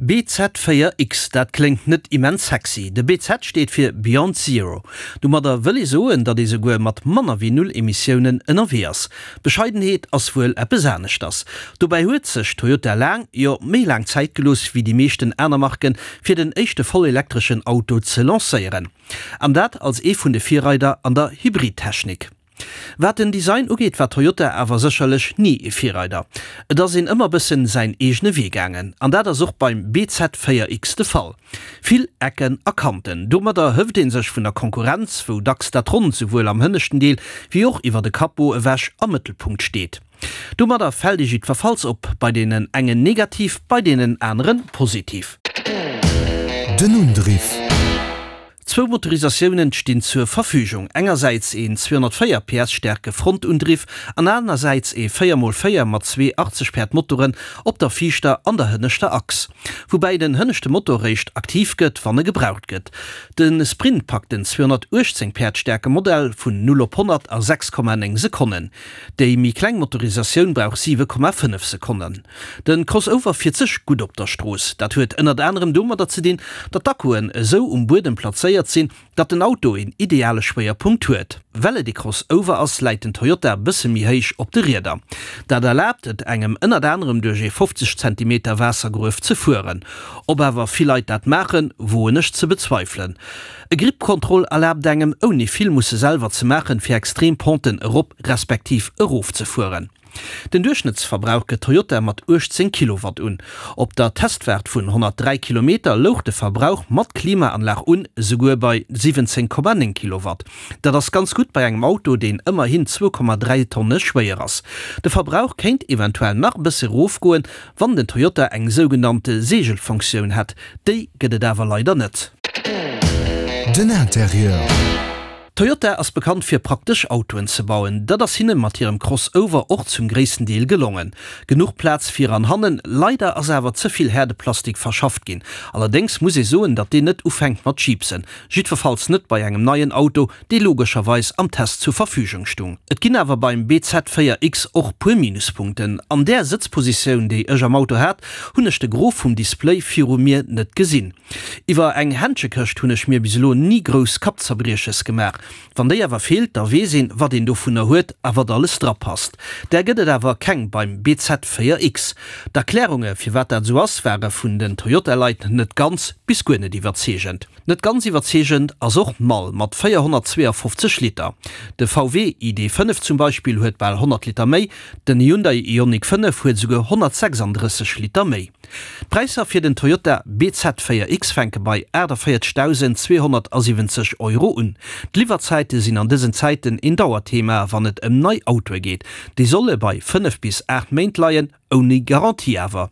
BZ4X, dat kléngt net immens sexy. De BZ steet fir Beyond Zero. Domadder wëll ee soen, datt ee souguer mat manner wéi null Emissiounen ënnerwee ass. Bescheidenheet ass wuel eppes aneschters. Dobäi huet sech Toyota laang, jo méi laang Zäit gelooss wéi déi meeschten aner Marken, fir den éischte vollelektreschen Auto ze lancéieren. An dat als ee vun de Virreider an der Hybridtechnik. Wat den Design ugeet war Toyota awer sécherlech ni e Virreider. Et ass een ëmmer bëssen säin eegene Wee gaangen. An dat ass och beim BZ4X de Fall. Vill Ecken a Kanten. Domadder hëft ee sech vun der Konkurrenz, wou dacks dat Ronnt souwuel am hënneschten Deel wéi och iwwer de Capot ewech am Mëttelpunkt steet. Domadder fält ee jiddwerfalls op, bei deenen engen negativ, bei deenen anere positiv. Den Undriff. Zwou Motorisatiounen stinn zur Verfügung, engersäits een 204 PS staarke Frontundriff an anersäits ee 4 x 4 mat zwee 80 Päerd Motoren op der viischter an der hënneschter Achs. Woubäi den hënneschte Motor réischt aktiv gëtt, wann e gebraucht gëtt. De Sprint packt den 218 Päerd staarke Modell vun 0 op 100 a 6,9 Sekonnen. Déi méi kleng Motorisatioun brauch 7,5 Sekonnen. De Crossover fiert sech gutt op der Strooss. Dat huet ënnert anerem domadder ze dinn, datt d'Akkuen esou um Buedem plazéiert sinn, datt den Auto een ideale Schwéierpunkt huet. Well et ee Crossover ass, läit den Toyota bësse méi héich op de Rieder. Dat erlaabt et engem ënnert anerem duerch ee 50 Zentimeter Waassergruef ze fueren. Ob awer vill Leit dat maachen, woen ech ze bezweifelen. E Grip Control erlaabt engem, ouni vill musse selwer ze maachen, fir extrem Penten erop respektiv erof ze fueren. Den Duerchschnëttsverbrauch gëtt Toyota mat 18 Kilowatt un. Op der Testfaart vun 103 Kilometer louch de Verbrauch mat Klimaanlag un esouguer bei 17,9 Kilowatt. Dat ass ganz gutt bei engem Auto, deen ëmmerhin 2,3 Tonne schwéier ass. De Verbrauch kéint eventuell nach e bësse erofgoen, wann den Toyota eng sougenannte Seegelfunktioun hätt. Déi gëtt et awer leider net. Den Interieur. Toyota ass bekannt fir praktesch Autoen ze bauen. Dat ass hinne mat hirem Crossover och zum gréissten Deel gelongen. Genuch Plaz vir an hannen, leider ass awer ze vill Häerdeplastik verschafft ginn. Allerdéngs muss ee soen, datt deen net ufänkt mat jiipsen. Jiddwerfalls net bei engem neien Auto, dee logescherweis am Test zur Verfügung stung. Et ginn awer beim BZ4X och puer Minuspunkten. An där Sëtzpositioun, déi ech am Auto hat, hunn ech de Gros vum Display viru mir net gesinn. Iwwer eng Händschekëscht hunn ech mir bis elo ni grouss Kappzerbrieches gemaach. Wann déi awer feelt, da weess een, wat een dovunner huet a wat alles drapasst. Där gëtt et awer keng beim BZ4X. D'Erklärunge firwat dat esou ass, ware vun den Toyota-Leit net ganz bis guer net iwwerzeegend. Net ganz iwwerzeegend ass och d'Mall mat 452 Liter. De VW ID. 5 zum Beispill huet bal 100 Liter méi, den Hyundai Ioniq 5 huet esouguer 136 Liter méi. D'Präisser fir den Toyota bZ4X fänke bei 48.270 Euro un. D'Liwwerzäite sinn an dësen Zäiten een Dauerthema, wann et ëm nei Autoe geet. Déi solle bei 5 bis 8 Méint leien, ouni Garantie awer.